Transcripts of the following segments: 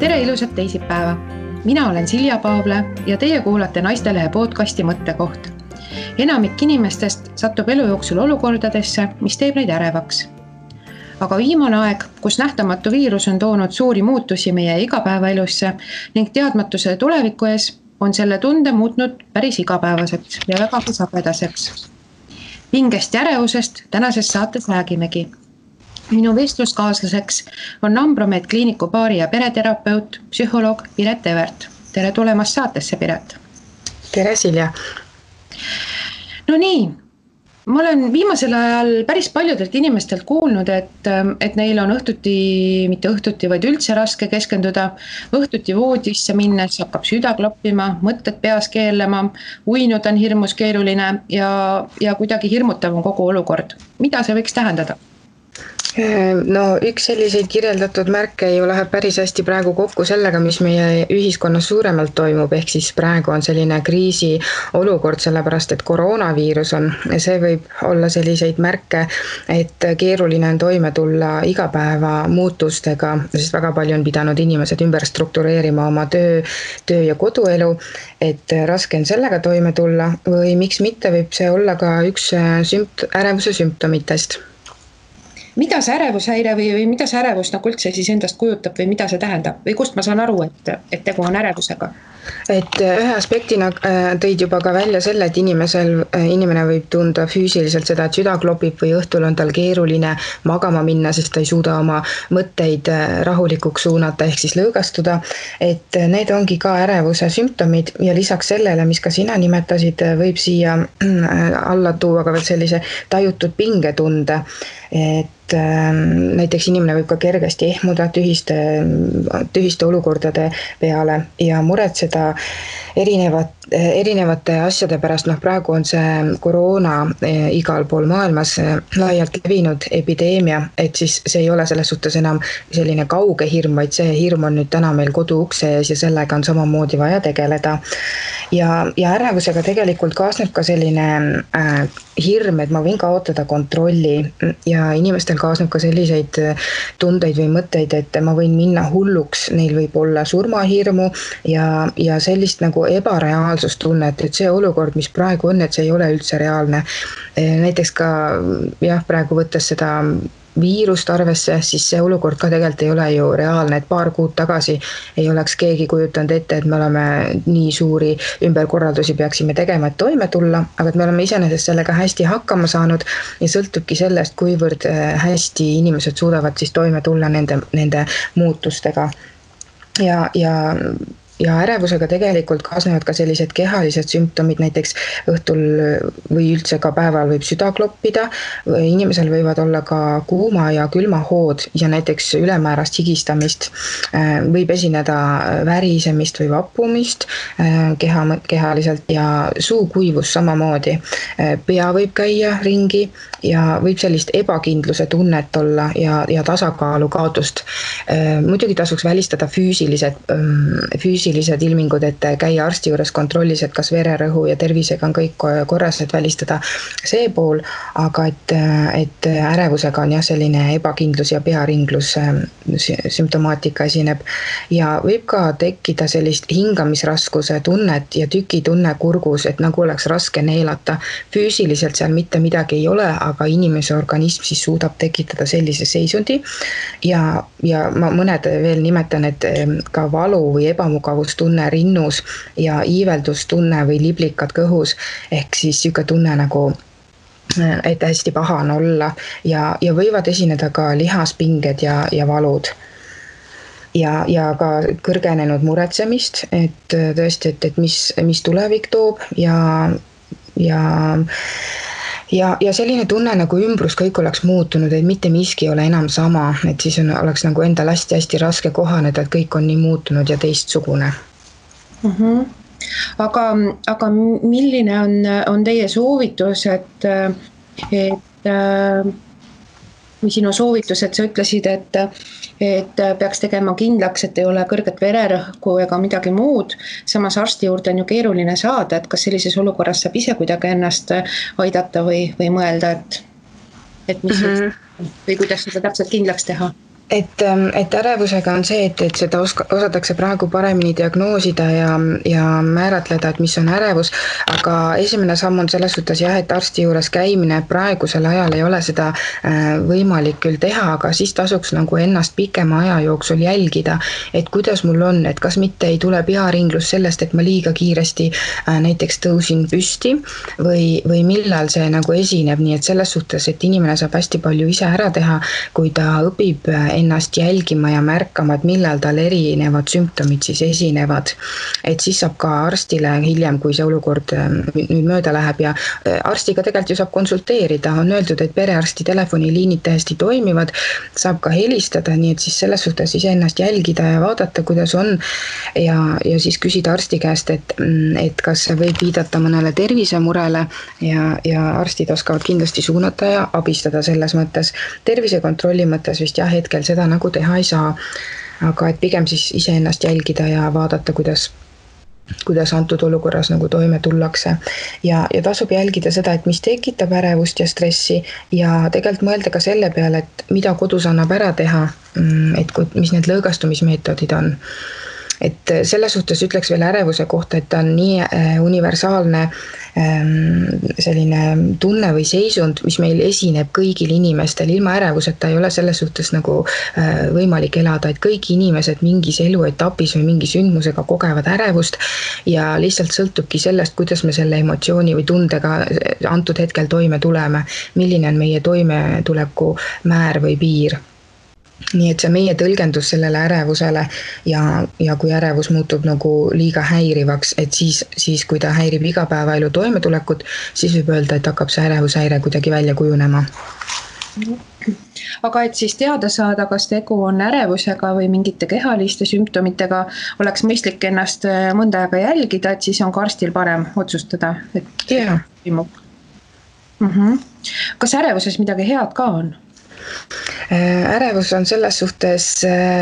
Tere ilusat teisipäeva! Mina olen Silja Paavle ja teie kuulate Naistelehe podcasti Mõttekoht. Enamik inimestest satub elu jooksul olukordadesse, mis teeb neid ärevaks. Aga viimane aeg, kus nähtamatu viirus on toonud suuri muutusi meie igapäevaelusse ning teadmatuse tuleviku ees, on selle tunde muutnud päris igapäevaseks ja vägagi sagedaseks. Pingest ja ärevusest tänases saates räägimegi. Minu vestluskaaslaseks on Ambromed kliiniku paari- ja pereterapeut, psühholoog Piret Evert. Tere tulemast saatesse, Piret! Tere, Silja! No nii, ma olen viimasel ajal päris paljudelt inimestelt kuulnud, et neil on mitte õhtuti, vaid üldse raske keskenduda. Õhtuti voodisse minnes hakkab süda kloppima, mõtted peas keelema, uinuda on hirmus keeruline ja kuidagi hirmutav on kogu olukord. Mida see võiks tähendada? No üks selliseid kirjeldatud märke ju läheb päris hästi praegu kokku sellega, mis meie ühiskonnas suuremalt toimub, ehk siis praegu on selline kriisi olukord, sellepärast et koroonaviirus on. See võib olla selliseid märke, et keeruline on toime tulla igapäeva muutustega, sest väga palju on pidanud inimesed ümber struktureerima oma töö ja koduelu, et raske on sellega toime tulla või miks mitte võib see olla ka üks ärevuse sümptomitest. Mida see ärevushäire või mida see ärevus üldse siis endast kujutab või mida see tähendab? Või kust ma saan aru, et tegu on ärevusega? Et ühe aspektina tõid juba ka välja selle, et inimene võib tunda füüsiliselt seda, et süda klopib või õhtul on tal keeruline magama minna, sest ta ei suuda oma mõtteid rahulikuks suunata ehk siis lõõgastuda. Et need ongi ka ärevuse sümptomid ja lisaks sellele, mis ka sina nimetasid, võib siia alla tuua ka veel sellise tajutud pingetunde. Et näiteks inimene võib ka kergesti ehmuda tühiste olukordade peale ja muretseda erinevate asjade pärast. Praegu on see koroona igal pool maailmas laialt levinud epideemia, et siis see ei ole selles suhtes enam selline kauge hirm, vaid see hirm on nüüd täna meil koduukse ees ja sellega on samamoodi vaja tegeleda. Ja ärevusega tegelikult kaasneb ka selline hirm, et ma võin kaotada kontrolli ja inimestel kaasneb ka selliseid tundeid või mõtteid, et ma võin minna hulluks, neil võib olla surmahirmu ja sellist nagu ebareaalsustunnet, et see olukord, mis praegu on, et see ei ole üldse reaalne. Näiteks ka praegu võttes seda viirust arvesse, siis see olukord ka tegelikult ei ole ju reaalne, et paar kuud tagasi ei oleks keegi kujutanud ette, et me oleme nii suuri ümberkorraldusi peaksime tegema, et toime tulla, aga et me oleme iseenesest sellega hästi hakkama saanud ja sõltubki sellest, kuivõrd hästi inimesed suudavad siis toime tulla nende muutustega. Ja ärevusega tegelikult kaasnevad ka sellised kehalised sümptomid, näiteks õhtul või üldse ka päeval võib süda kloppida, inimesel võivad olla ka kuuma ja külma hood ja näiteks ülemäärast higistamist, võib esineda värisemist või vappumist kehaliselt ja suukuivus samamoodi. Pea võib käia ringi ja võib sellist ebakindluse tunnet olla ja tasakaalu kaotust. Muidugi tasuks välistada füüsilised ilmingud, et käia arsti juures kontrollis, et kas vererõhu ja tervisega on kõik korras, et välistada see pool, aga et ärevusega on selline ebakindlus ja pearinglus sümptomaatika esineb ja võib ka tekkida sellist hingamisraskuse tunnet ja tükitunne kurgus, et nagu oleks raske neelata. Füüsiliselt seal mitte midagi ei ole, aga inimese organism siis suudab tekitada sellise seisundi ja ma mõned veel nimetan, et ka valu või ebamugavustunne rinnus ja iiveldustunne või liblikad kõhus ehk siis siuke tunne nagu et hästi paha on olla ja võivad esineda ka lihaspinged ja valud. Ja ka kõrgenenud muretsemist, et tõesti, et mis tulevik toob ja selline tunne nagu ümbrus kõik oleks muutunud, et mitte miski ei ole enam sama, et siis oleks nagu endal hästi raske kohaneda, et kõik on nii muutunud ja teistsugune. Aga milline on teie soovitus, või sinu soovitus, et sa ütlesid, et peaks tegema kindlaks, et ei ole kõrget vererõhku ega midagi muud. Samas arsti juurde on ju keeruline saada, et kas sellises olukorras saab ise kuidagi ennast aidata või mõelda, et mis või kuidas seda täpselt kindlaks teha? et ärevusega on see, et seda osatakse praegu paremini diagnoosida ja määratleda, et mis on ärevus, aga esimene samm on selles suhtes jah, et arsti juures käimine praegusel ajal ei ole seda võimalik küll teha, aga siis tasuks nagu ennast pikema aja jooksul jälgida, et kuidas mul on, et kas mitte ei tule pearinglus sellest, et ma liiga kiiresti näiteks tõusin püsti või millal see nagu esineb, nii et selles suhtes, et inimene saab hästi palju ise ära teha, kui ta õpib ennast jälgima ja märkama, et millal tal erinevad sümptomid siis esinevad. Et siis saab ka arstile hiljem, kui see olukord nüüd mööda läheb ja arstiga tegelikult ju saab konsulteerida, on öeldud, et perearsti telefoniliinid täiesti toimivad, saab ka helistada, nii et siis selles suhtes ise ennast jälgida ja vaadata, kuidas on ja siis küsida arsti käest, et kas see võib viidata mõnele tervisemurele ja arstid oskavad kindlasti suunata ja abistada selles mõttes. Tervisekontrolli mõttes vist jah, hetkel seda nagu teha ei saa, aga et pigem siis iseennast jälgida ja vaadata, kuidas antud olukorras nagu toime tullakse. Ja tasub jälgida seda, et mis tekitab ärevust ja stressi ja tegelikult mõelda ka selle peale, et mida kodus annab ära teha, et mis need lõõgastumismeetodid on. Et selles suhtes ütleks veel ärevuse kohta, et ta on nii universaalne selline tunne või seisund, mis meil esineb kõigil inimestel. Ilma ärevuseta ei ole selles suhtes nagu võimalik elada, et kõik inimesed mingis eluetapis või mingi sündmusega kogevad ärevust ja lihtsalt sõltubki sellest, kuidas me selle emotsiooni või tundega antud hetkel toime tuleme, milline on meie toimetuleku määr või piir. Nii et see meie tõlgendus sellele ärevusele ja kui ärevus muutub nagu liiga häirivaks, et siis kui ta häirib igapäevaelu toimetulekut, siis võib öelda, et hakkab see ärevushäire kuidagi välja kujunema. Aga et siis teada saada, kas tegu on ärevusega või mingite kehaliste sümptomitega, oleks mõistlik ennast mõnda aega jälgida, et siis on ka arstil parem otsustada, et toimub. Kas ärevuses midagi head ka on? Ärevus on selles suhtes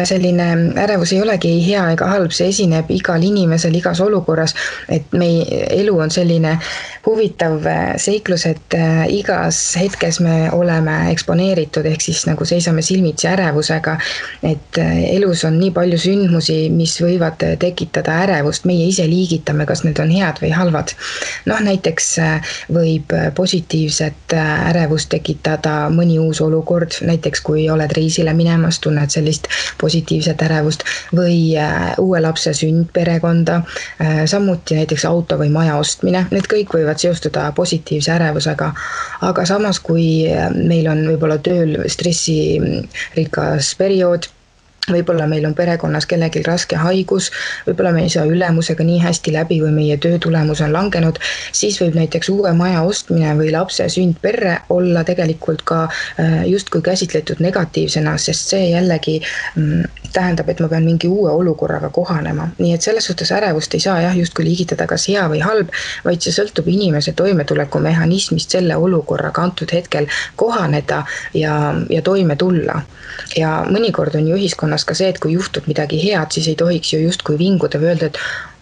selline, ärevus ei olegi ei hea ega halb, see esineb igal inimesel igas olukorras, et meie elu on selline huvitav seiklus, et igas hetkes me oleme eksponeeritud, ehk siis nagu seisame silmitsi ärevusega, et elus on nii palju sündmusi, mis võivad tekitada ärevust, meie ise liigitame, kas need on head või halvad. Näiteks võib positiivset ärevust tekitada mõni uus olukord, näiteks kui oled reisile minemas, tunned sellist positiivset ärevust või uue lapse sünd perekonda, samuti näiteks auto või maja ostmine, need kõik võivad seostuda positiivse ärevusega, aga samas kui meil on võib-olla tööl stressirikas periood, võib-olla meil on perekonnas kellelgi raske haigus, võib-olla me ei saa ülemusega nii hästi läbi või meie töö tulemus on langenud, siis võib näiteks uue maja ostmine või lapse sünd perre olla tegelikult ka justkui käsitletud negatiivsena, sest see jällegi tähendab, et ma pean mingi uue olukorraga kohanema. Nii et selles suhtes ärevust ei saa justkui liigitada kas hea või halb, vaid see sõltub inimese toimetuleku mehhanismist selle olukorraga antud hetkel kohaneda ja toime tulla. Ja mõnikord on ju ühiskonnas ka see, et kui juhtub midagi head, siis ei tohiks ju justkui vinguda või öelda, et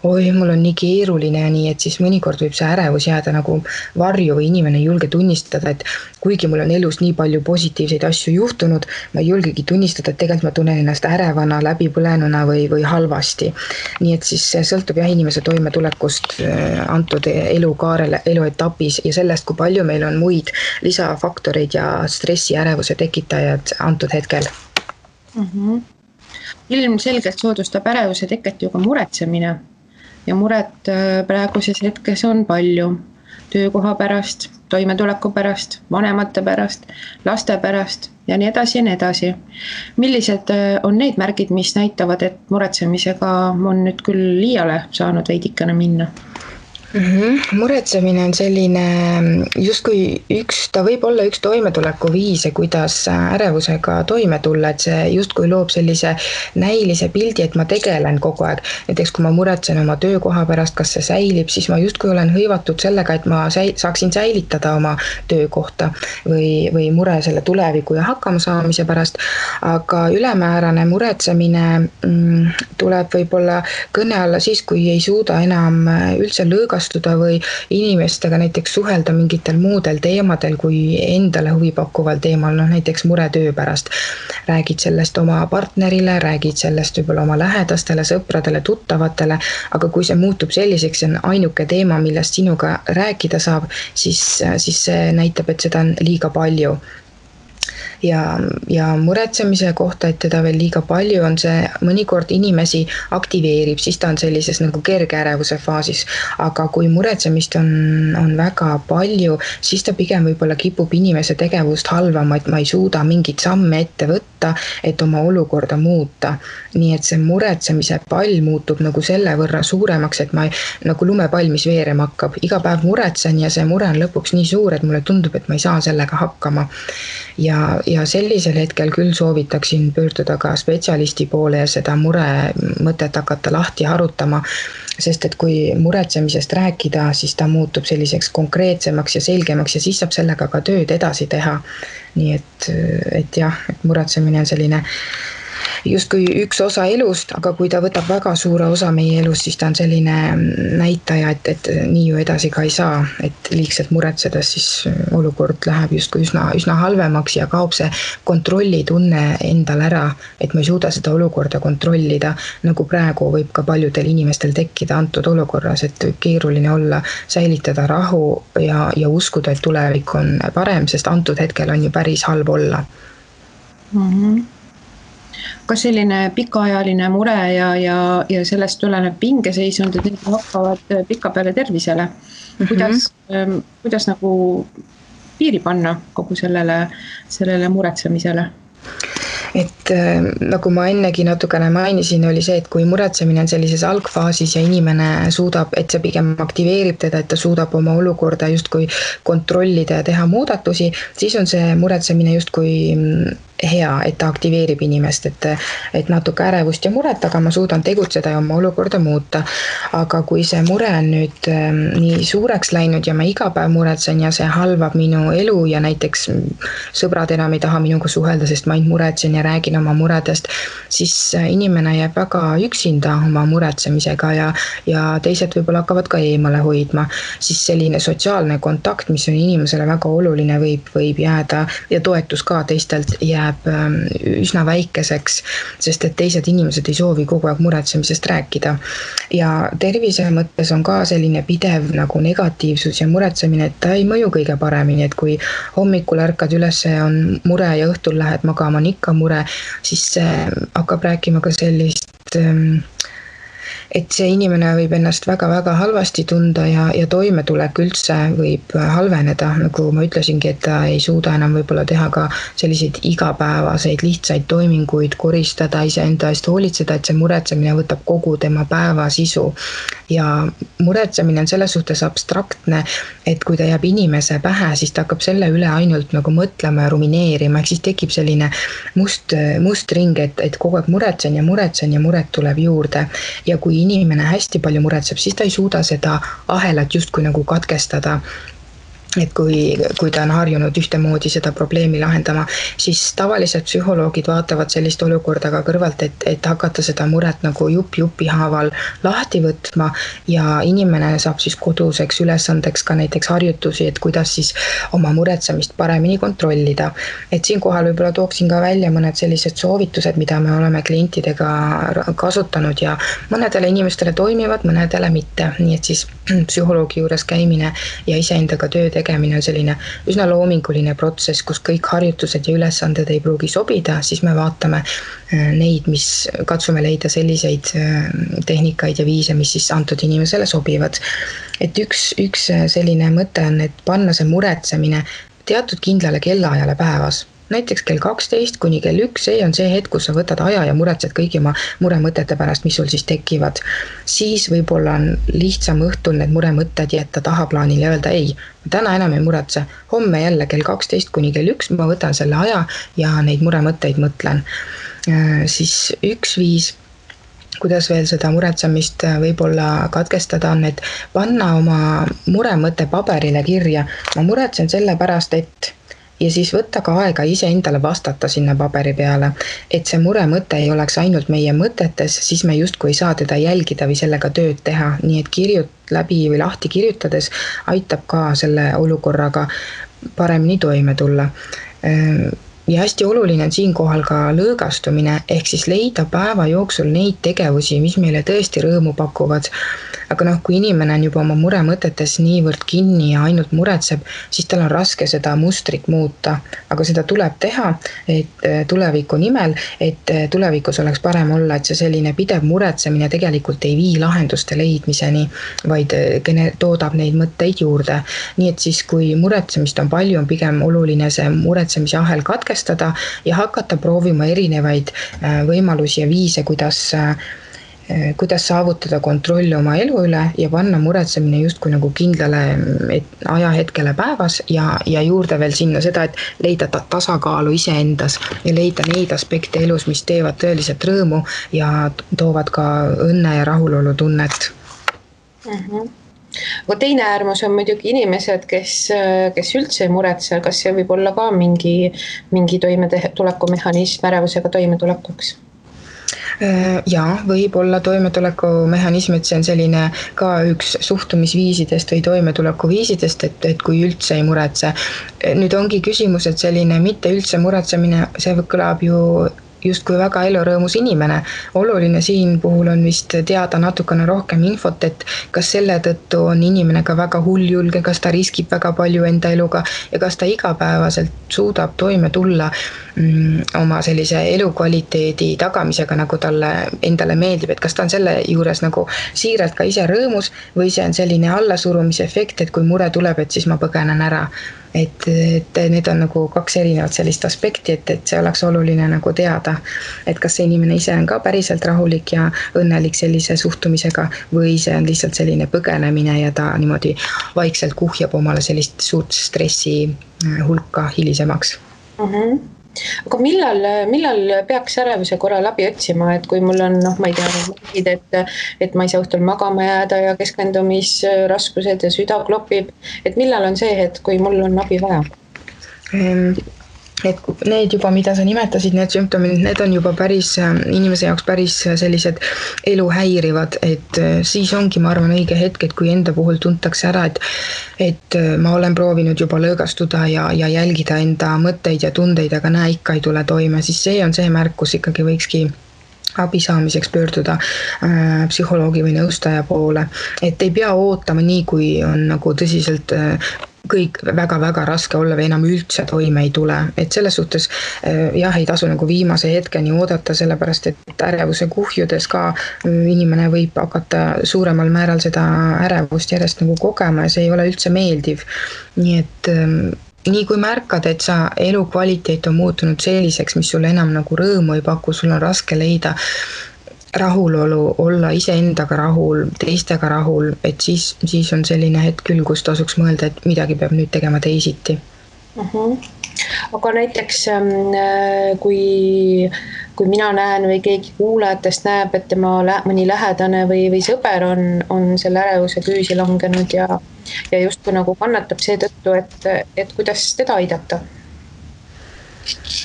oi, mul on nii keeruline ja nii, et siis mõnikord võib see ärevus jääda nagu varju või inimene ei julge tunnistada, et kuigi mul on elus nii palju positiivseid asju juhtunud, ma ei julgegi tunnistada, et tegelikult ma tunnen ennast ärevana, läbipõlenuna või halvasti. Nii et siis see sõltub inimese toimetulekust antud elukaarele, eluetapis ja sellest, kui palju meil on muid lisafaktoreid ja stressi ärevuse tekitajad antud hetkel. Ilmselgelt soodustab ärevuse teket ju ka muretsemine ja muret praeguses hetkes on palju töökoha pärast, toimetuleku pärast, vanemate pärast, laste pärast ja nii edasi ja nii edasi. Millised on need märgid, mis näitavad, et muretsemisega on nüüd küll liiale saanud veidikene minna? Muretsemine on selline justkui ta võib olla üks toimetuleku viise, kuidas ärevusega toime tulla, et see justkui loob sellise näilise pildi, et ma tegelen kogu aeg. Näiteks kui ma muretsen oma töökoha pärast, kas see säilib, siis ma justkui olen hõivatud sellega, et ma saaksin säilitada oma töökohta või mure selle tuleviku ja hakkama saamise pärast. Aga ülemäärane muretsemine tuleb võib-olla kõne alla siis, kui ei suuda enam üldse lõõgastada rikastuda või inimestega näiteks suhelda mingitel muudel teemadel kui endale huvipakkuval teemal, näiteks mure töö pärast. Räägid sellest oma partnerile, räägid sellest võib-olla oma lähedastele, sõpradele, tuttavatele, aga kui see muutub selliseks, see on ainuke teema, millest sinuga rääkida saab, siis see näitab, et seda on liiga palju. Ja muretsemise kohta, et teda veel liiga palju on, see mõnikord inimesi aktiveerib, siis ta on sellises nagu kerge ärevuse faasis. Aga kui muretsemist on väga palju, siis ta pigem võib-olla kipub inimese tegevust halvama, et ma ei suuda mingit samme ette võtta, et oma olukorda muuta. Nii et see muretsemise pall muutub nagu selle võrra suuremaks, et ma nagu lumepall, mis veerema hakkab. Iga päev muretsen ja see mure on lõpuks nii suur, et mulle tundub, et ma ei saa sellega hakkama. Ja sellisel hetkel küll soovitaksin pöörduda ka spetsialisti poole ja seda mure mõtet hakata lahti harutama, sest et kui muretsemisest rääkida, siis ta muutub selliseks konkreetsemaks ja selgemaks ja siis saab sellega ka tööd edasi teha. Nii et jah, et muretsemine on selline justkui üks osa elust, aga kui ta võtab väga suure osa meie elust, siis ta on selline näitaja, et nii ju edasi ka ei saa, et liigselt muretsedes siis olukord läheb justkui üsna halvemaks ja kaob see kontrollitunne endal ära, et ma ei suuda seda olukorda kontrollida, nagu praegu võib ka paljudel inimestel tekkida antud olukorras, et keeruline olla, säilitada rahu ja uskuda, et tulevik on parem, sest antud hetkel on ju päris halb olla. Kas selline pikaajaline mure ja sellest tulenev pingeseisund, et need hakkavad pika peale tervisele? Kuidas nagu piiri panna kogu sellele muretsemisele? Et nagu ma ennegi natukene mainisin, oli see, et kui muretsemine on sellises algfaasis ja inimene suudab, et see pigem aktiveerib teda, et ta suudab oma olukorda justkui kontrollida ja teha muudatusi, siis on see muretsemine justkui hea, et ta aktiveerib inimest, et natuke ärevust ja muret, aga ma suudan tegutseda ja oma olukorda muuta. Aga kui see mure on nüüd nii suureks läinud ja ma iga päev muretsen ja see halvab minu elu ja näiteks sõbrad enam ei taha minuga suhelda, sest ma ainult muretsen ja räägin oma muredest, siis inimene jääb väga üksinda oma muretsemisega ja teised võib-olla hakkavad ka eemale hoidma. Siis selline sotsiaalne kontakt, mis on inimesele väga oluline, võib jääda ja toetus ka teistelt jääb üsna väikeseks, sest et teised inimesed ei soovi kogu aeg muretsemisest rääkida. Ja tervise mõttes on ka selline pidev nagu negatiivsus ja muretsemine, et ta ei mõju kõige paremini, et kui hommikul ärkad üles on mure ja õhtul lähed magama on ikka mure, siis hakkab rääkima ka sellist, et see inimene võib ennast väga-väga halvasti tunda ja toimetulek üldse võib halveneda, nagu ma ütlesingi, et ta ei suuda enam võib-olla teha ka selliseid igapäevaseid lihtsaid toiminguid, koristada iseenda eest, hoolitseda, et see muretsemine võtab kogu tema päeva sisu. Ja muretsemine on selles suhtes abstraktne, et kui ta jääb inimese pähe, siis ta hakkab selle üle ainult nagu mõtlema ja rumineerima, ehk siis tekib selline must ring, et kogu aeg muretsen ja muret tuleb juurde. Ja kui inimene hästi palju muretseb, siis ta ei suuda seda ahelat justkui nagu katkestada. Et kui ta on harjunud ühtemoodi seda probleemi lahendama, siis tavalised psühholoogid vaatavad sellist olukorda ka kõrvalt, et hakata seda muret nagu jupi haaval lahti võtma ja inimene saab siis koduseks ülesandeks ka näiteks harjutusi, et kuidas siis oma muretsemist paremini kontrollida. Et siinkohal võib-olla tooksin ka välja mõned sellised soovitused, mida me oleme klientidega kasutanud ja mõnedele inimestele toimivad, mõnedele mitte. Nii et siis psühholoogi juures käimine ja iseendaga töö tegemine on selline üsna loominguline protsess, kus kõik harjutused ja ülesanded ei pruugi sobida, siis me vaatame neid, mis katsume leida selliseid tehnikaid ja viise, mis siis antud inimesele sobivad. Et üks selline mõte on, et panna see muretsemine teatud kindlale kellaajale päevas. Näiteks kell 12 kuni kell 1, see on see hetk, kus sa võtad aja ja muretsed kõigi oma muremõtete pärast, mis sul siis tekivad. Siis võib-olla on lihtsam õhtul need muremõtted jätta tahaplaanile ja öelda ei, täna enam ei muretse, homme jälle kell 12 kuni kell 1 ma võtan selle aja ja neid muremõtteid mõtlen. Siis üks viis, kuidas veel seda muretsemist võib-olla katkestada on, et panna oma muremõte paberile kirja. Ma muretsen selle pärast, et ja siis võtta ka aega ise endale vastata sinna paberi peale, et see muremõte ei oleks ainult meie mõtetes, siis me justkui ei saa teda jälgida või sellega tööd teha, nii et läbi või lahti kirjutades aitab ka selle olukorraga paremini toime tulla. Ja hästi oluline on siinkohal ka lõõgastumine, ehk siis leida päeva jooksul neid tegevusi, mis meile tõesti rõõmu pakuvad. Aga kui inimene on juba oma muremõtetes niivõrd kinni ja ainult muretseb, siis tal on raske seda mustrit muuta. Aga seda tuleb teha, et tuleviku nimel, et tulevikus oleks parem olla, et see selline pidev muretsemine tegelikult ei vii lahenduste leidmiseni, vaid toodab neid mõtteid juurde. Nii et siis, kui muretsemist on palju, on pigem oluline see muretsemise ahel katkestada ja hakata proovima erinevaid võimalusi ja viise, kuidas saavutada kontrolli oma elu üle ja panna muretsemine justkui nagu kindlale ajahetkele päevas ja juurde veel sinna seda, et leida tasakaalu iseendas ja leida neid aspekte elus, mis teevad tõeliselt rõõmu ja toovad ka õnne ja rahulolu tunnet. Aga teine äärmus on muidugi inimesed, kes üldse ei muretse, kas see võib olla ka mingi toimetulekumehanism ärevusega toimetulekuks? Jaa, võib olla toimetulekumehanism, et see on selline ka üks suhtumisviisidest või toimetulekuviisidest, et kui üldse ei muretse. Nüüd ongi küsimus, et selline mitte üldse muretsemine, see kõlab ju justkui väga elurõõmus inimene. Oluline siin puhul on vist teada natukene rohkem infot, et kas selle tõttu on inimene ka väga hulljulge, kas ta riskib väga palju enda eluga ja kas ta igapäevaselt suudab toime tulla oma sellise elukvaliteedi tagamisega, nagu talle endale meeldib, et kas ta on selle juures nagu siiralt ka ise rõõmus või see on selline allasurumise efekt, et kui mure tuleb, et siis ma põgenen ära. Et need on nagu kaks erinevat sellist aspekti, et see oleks oluline nagu teada, et kas see inimene ise on ka päriselt rahulik ja õnnelik sellise suhtumisega või see on lihtsalt selline põgenemine ja ta niimoodi vaikselt kuhjab omale sellist suurt stressi hulka hilisemaks. Aga millal peaks ärevuse korral abi otsima, et kui mul on, ma ei tea, et ma ei saa õhtul magama jääda ja keskendumisraskused ja süda klopib, et millal on see hetk, kui mul on abi vaja? Et need juba, mida sa nimetasid, need sümptomid, need on juba inimese jaoks päris sellised elu häirivad, et siis ongi, ma arvan, õige hetk, et kui enda puhul tuntakse ära, et ma olen proovinud juba lõõgastuda ja jälgida enda mõtteid ja tundeid, aga näe, ikka ei tule toime, siis see on see märk, kus ikkagi võikski abi saamiseks pöörduda psühholoogi või nõustaja poole. Et ei pea ootama nii, kui on nagu tõsiselt kõik väga-väga raske olla või enam üldse toime ei tule. Et selles suhtes ei tasu nagu viimase hetkeni oodata, sellepärast et ärevuse kuhjudes ka inimene võib hakata suuremal määral seda ärevust järjest nagu kogema ja see ei ole üldse meeldiv. Nii et nii kui märkad, et sa elukvaliteet on muutunud selliseks, mis sulle enam nagu rõõmu ei paku, sul on raske leida rahulolu, olla iseendaga rahul, teistega rahul, et siis on selline hetk küll, kus tasuks mõelda, et midagi peab nüüd tegema teisiti. Aga näiteks kui mina näen või keegi kuulajatest näeb, et tema mõni lähedane või sõber on selle ärevuse küüsi langenud ja justkui nagu kannatab seetõttu, et kuidas teda aidata?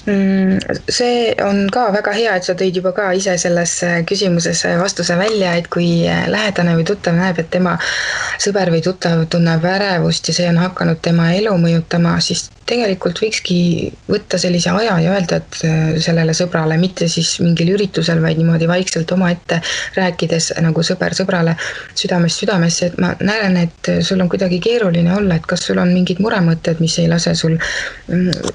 See on ka väga hea, et sa tõid juba ka ise selles küsimuses vastuse välja, et kui lähedane või tuttav näeb, et tema sõber või tuttav tunneb ärevust ja see on hakanud tema elu mõjutama, siis tegelikult võikski võtta sellise aja ja öelda, et sellele sõbrale, mitte siis mingil üritusel, vaid niimoodi vaikselt omaette rääkides nagu sõber sõbrale südamest südamesse, et ma näen, et sul on kuidagi keeruline olla, et kas sul on mingid muremõtted, mis ei lase sul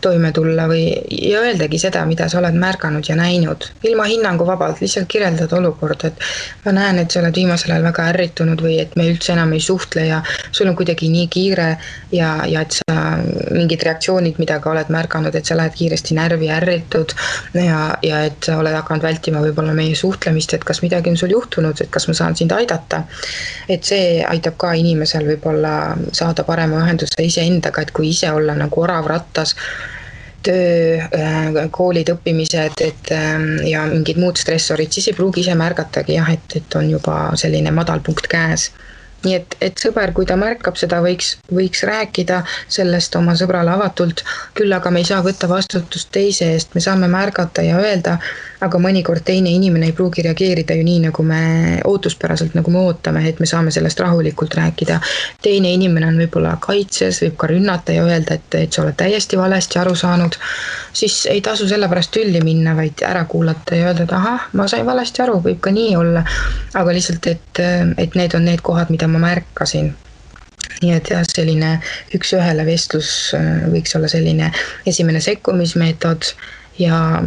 toime tulla ja öeldagi seda, mida sa oled märganud ja näinud. Ilma hinnangu vabalt, lihtsalt kirjeldad olukorda, et ma näen, et sa oled viimasel ajal väga ärritunud või et me üldse enam ei suhtle ja sul on kuidagi nii kiire ja et sa mingid reaktsioonid, mida ka oled märganud, et sa lähed kiiresti närvi ärritud ja et sa oled hakanud vältima võib-olla meie suhtlemist, et kas midagi on sul juhtunud, et kas ma saan sind aidata. Et see aitab ka inimesel võib-olla saada parema ühenduse iseendaga, et kui ise olla nagu orav rattas, töö, koolid, õppimised ja mingid muud stressorid, siis ei pruugi ise märgatagi, et on juba selline madalpunkt käes. nii et sõber, kui ta märkab seda, võiks rääkida sellest oma sõbrale avatult, küll aga me ei saa võtta vastutust teise eest, me saame märgata ja öelda, aga mõnikord teine inimene ei pruugi reageerida ju nii, nagu me ootuspäraselt, nagu me ootame, et me saame sellest rahulikult rääkida. Teine inimene on võib-olla kaitses, võib ka rünnata ja öelda, et sa oled täiesti valesti aru saanud, siis ei tasu selle pärast tülli minna, vaid ära kuulata ja öelda, et ahah, ma sain valesti aru, võib ka nii olla, aga lihtsalt, et need on need kohad, mida ma märkasin. Nii et jah, selline üks-ühele vestlus võiks olla selline esimene sekkumismeetod ja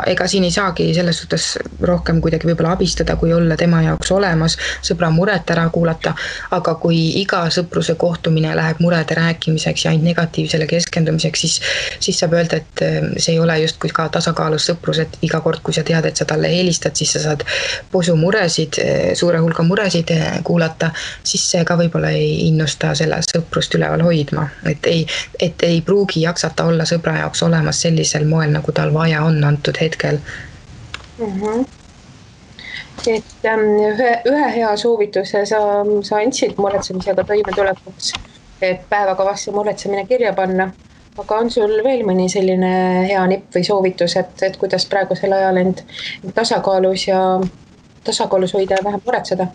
ega siin ei saagi selles suhtes rohkem kuidagi võib-olla abistada, kui olla tema jaoks olemas, sõbra muret ära kuulata, aga kui iga sõpruse kohtumine läheb murede rääkimiseks ja ainult negatiivsele keskendumiseks, siis saab öelda, et see ei ole just kui ka tasakaalus sõprus, et iga kord, kui sa tead, et sa talle helistad, siis sa saad posu muresid, suure hulga muresid kuulata, siis see ka võib-olla ei innusta selle sõprust üleval hoidma, et ei pruugi jaksata olla sõbra jaoks olemas sellisel moel, nagu tal vaja on antud hetkel. Et ühe hea soovituse sa andsid muretsemisega toimetulekuks, et päevakavasse muretsemine kirja panna, aga on sul veel mõni selline hea nipp või soovitus, et kuidas praegusel ajal end tasakaalus hoida ja vähem muretseda?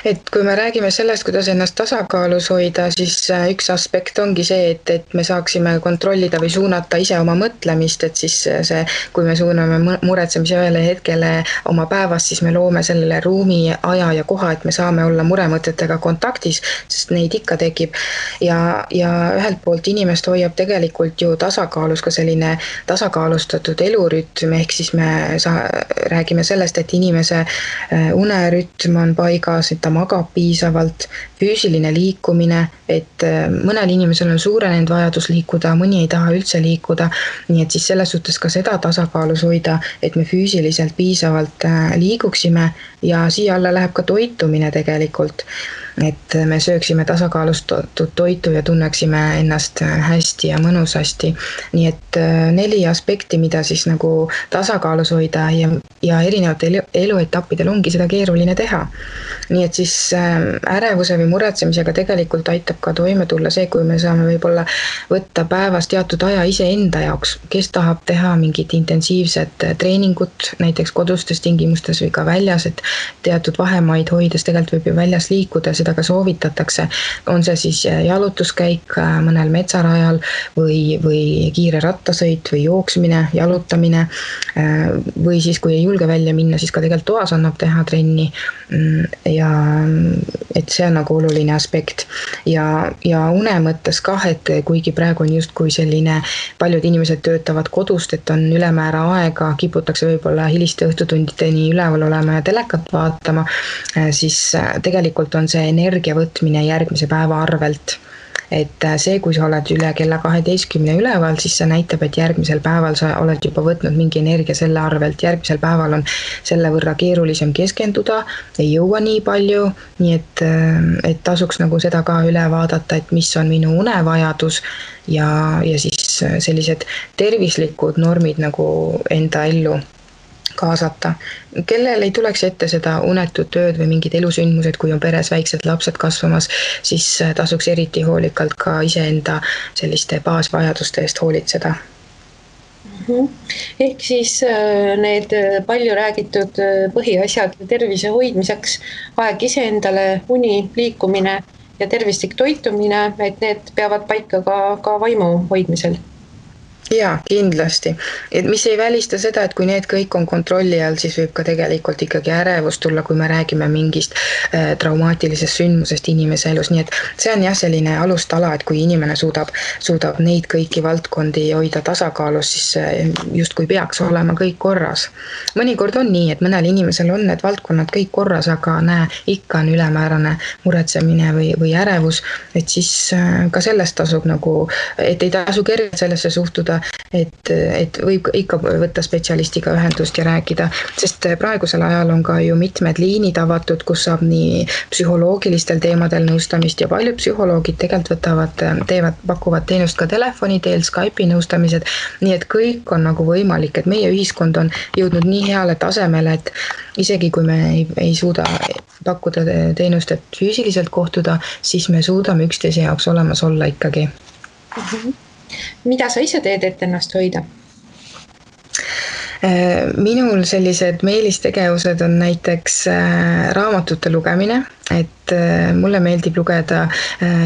Et kui me räägime sellest, kuidas ennast tasakaalus hoida, siis üks aspekt ongi see, et me saaksime kontrollida või suunata ise oma mõtlemist, et siis see, kui me suuname muretsemise ühele hetkele oma päevast, siis me loome sellele ruumi, aja ja koha, et me saame olla muremõtetega kontaktis, sest neid ikka tekib. Ja ühelt poolt inimest hoiab tegelikult ju tasakaalus ka selline tasakaalustatud elurütm, ehk siis me räägime sellest, et inimese unerütm on paigas, et ta magab piisavalt, füüsiline liikumine, et mõnel inimesel on suurenenud vajadus liikuda, mõni ei taha üldse liikuda, nii et siis selles suhtes ka seda tasakaalus hoida, et me füüsiliselt piisavalt liiguksime ja siia alla läheb ka toitumine tegelikult, et me sööksime tasakaalustatud toitu ja tunneksime ennast hästi ja mõnusasti. Nii et 4 aspekti, mida siis nagu tasakaalus hoida ja erinevatel eluetappidel ongi seda keeruline teha. Nii et siis ärevuse või muretsemisega tegelikult aitab ka toime tulla see, kui me saame võib-olla võtta päevas teatud aja iseenda jaoks, kes tahab teha mingit intensiivset treeningut, näiteks kodustes tingimustes või ka väljas, et teatud vahemaid hoides tegelikult võib ju väljas liikuda, seda ka soovitatakse. On see siis jalutuskäik mõnel metsarajal või kiire rattasõit või jooksmine, jalutamine või siis, kui ei julge välja minna, siis ka tegelikult toas annab teha trenni ja et see on nagu oluline aspekt ja une mõttes kah, et kuigi praegu on justkui selline, paljud inimesed töötavad kodust, et on ülemäära aega, kiputakse võib-olla hiliste õhtutundideni üleval olema ja telekat vaatama, siis tegelikult on see energia võtmine järgmise päeva arvelt. Et see, kui sa oled üle kella 12 üleval, siis see näitab, et järgmisel päeval sa oled juba võtnud mingi energia selle arvelt. Järgmisel päeval on selle võrra keerulisem keskenduda, ei jõua nii palju, nii et tasuks nagu seda ka üle vaadata, et mis on minu unevajadus ja siis sellised tervislikud normid nagu enda ellu kaasata. Kellel ei tuleks ette seda unetut tööd või mingid elusündmused, kui on peres väiksed lapsed kasvamas, siis tasuks eriti hoolikalt ka iseenda selliste baasvajaduste eest hoolitseda. Ehk siis need palju räägitud põhiasjad tervise hoidmiseks, aeg iseendale, uni, liikumine ja tervislik toitumine, et need peavad paika ka vaimu hoidmisel. Jaa, kindlasti. Et mis ei välista seda, et kui need kõik on kontrolli all, siis võib ka tegelikult ikkagi ärevus tulla, kui me räägime mingist traumaatilisest sündmusest inimese elus. Nii et see on jah selline alustala, et kui inimene suudab neid kõiki valdkondi hoida tasakaalus, siis just kui peaks olema kõik korras. Mõnikord on nii, et mõnel inimesel on need valdkonnad kõik korras, aga ikka on ülemäärane muretsemine või ärevus, et siis ka sellest tasub nagu, et ei tasu kergelt sellesse suhtuda, uskuda, et võib ikka võtta spetsialistiga ühendust ja rääkida, sest praegusel ajal on ka ju mitmed liinid avatud, kus saab nii psühholoogilistel teemadel nõustamist ja paljud psühholoogid tegelikult pakuvad teenust ka telefoni teel, Skype'i nõustamised, nii et kõik on nagu võimalik, et meie ühiskond on jõudnud nii heale tasemele, et isegi kui me ei suuda pakkuda teenust, et füüsiliselt kohtuda, siis me suudame üksteise jaoks olemas olla ikkagi. Mida sa ise teed, et ennast hoida? Minul sellised meelistegevused on näiteks raamatute lugemine, et mulle meeldib lugeda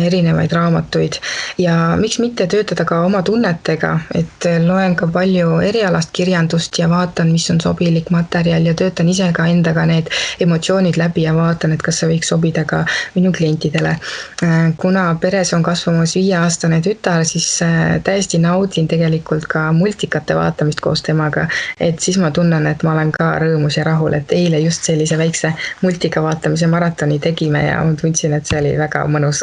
erinevaid raamatuid ja miks mitte töötada ka oma tunnetega, et loen ka palju erialast kirjandust ja vaatan, mis on sobilik materjal ja töötan ise ka endaga need emotsioonid läbi ja vaatan, et kas see võiks sobida ka minu klientidele. Kuna peres on kasvamas 5-aastane tütar, siis täiesti naudin tegelikult ka multikate vaatamist koos temaga, et siis ma tunnen, et ma olen ka rõõmus ja rahul, et eile just sellise väikse multika vaatamise maratoni tegime ja ma tundsin, et see oli väga mõnus,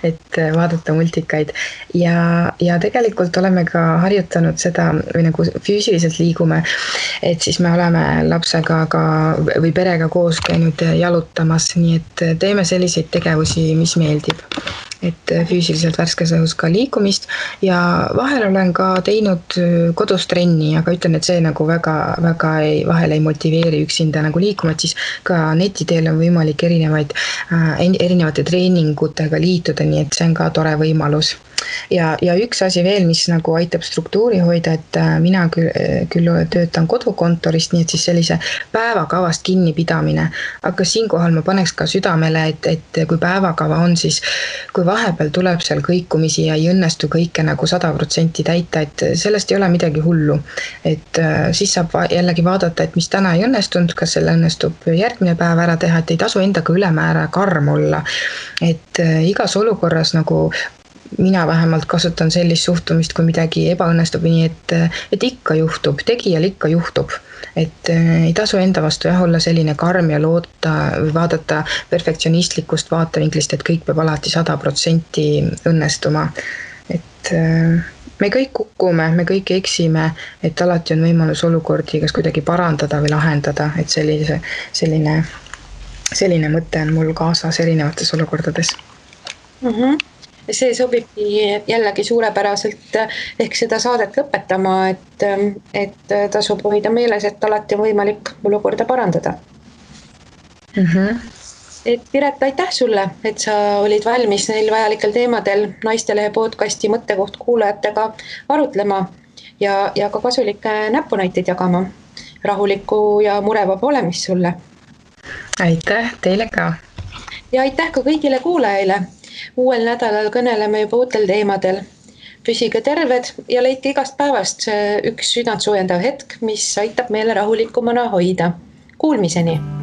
et vaadata multikaid ja tegelikult oleme ka harjutanud seda või nagu füüsiliselt liigume, et siis me oleme lapsega ka või perega koos käinud jalutamas, nii et teeme selliseid tegevusi, mis meeldib. Et füüsiliselt värskes õhus ka liikumist ja vahel olen ka teinud kodus trenni, aga ütlen, et see nagu vahel ei motiveeri üksinda nagu liikuma, et siis ka netiteel on võimalik erinevate treeningutega liituda, nii et see on ka tore võimalus. Ja üks asi veel, mis nagu aitab struktuuri hoida, et mina küll töötan kodukontorist, nii et siis sellise päevakavast kinnipidamine, aga siinkohal ma paneks ka südamele, et kui päevakava on, siis kui vahepeal tuleb seal kõikumisi ja ei õnnestu kõike nagu 100% täita, et sellest ei ole midagi hullu. Et siis saab jällegi vaadata, et mis täna ei õnnestunud, kas selle õnnestub järgmine päev ära teha, et ei tasu endaga ülemäära karm olla. Et igas olukorras nagu mina vähemalt kasutan sellist suhtumist, kui midagi ebaõnnestub, nii et ikka juhtub, tegijal ikka juhtub. Et ei tasu enda vastu olla selline karm ja loota või vaadata perfektsionistlikust vaatevinklist, et kõik peab alati 100% õnnestuma. Et me kõik kukume, me kõik eksime, et alati on võimalus olukordi kas kuidagi parandada või lahendada, et selline mõte on mul kaasas erinevates olukordades. See sobibki jällegi suurepäraselt ehk seda saadet lõpetama, et tasub hoida meeles, et alati on võimalik olukorda parandada. Et Piret, aitäh sulle, et sa olid valmis neil vajalikel teemadel Naistelehe podcasti Mõttekoht kuulajatega arutlema ja ka kasulikke näpunäiteid jagama. Rahulikku ja murevaba olemist sulle. Aitäh teile ka. Ja aitäh ka kõigile kuulajaile. Uuel nädalal kõneleme juba uutel teemadel. Püsige terved ja leidke igast päevast üks südant soojendav hetk, mis aitab meile rahulikumana hoida. Kuulmiseni!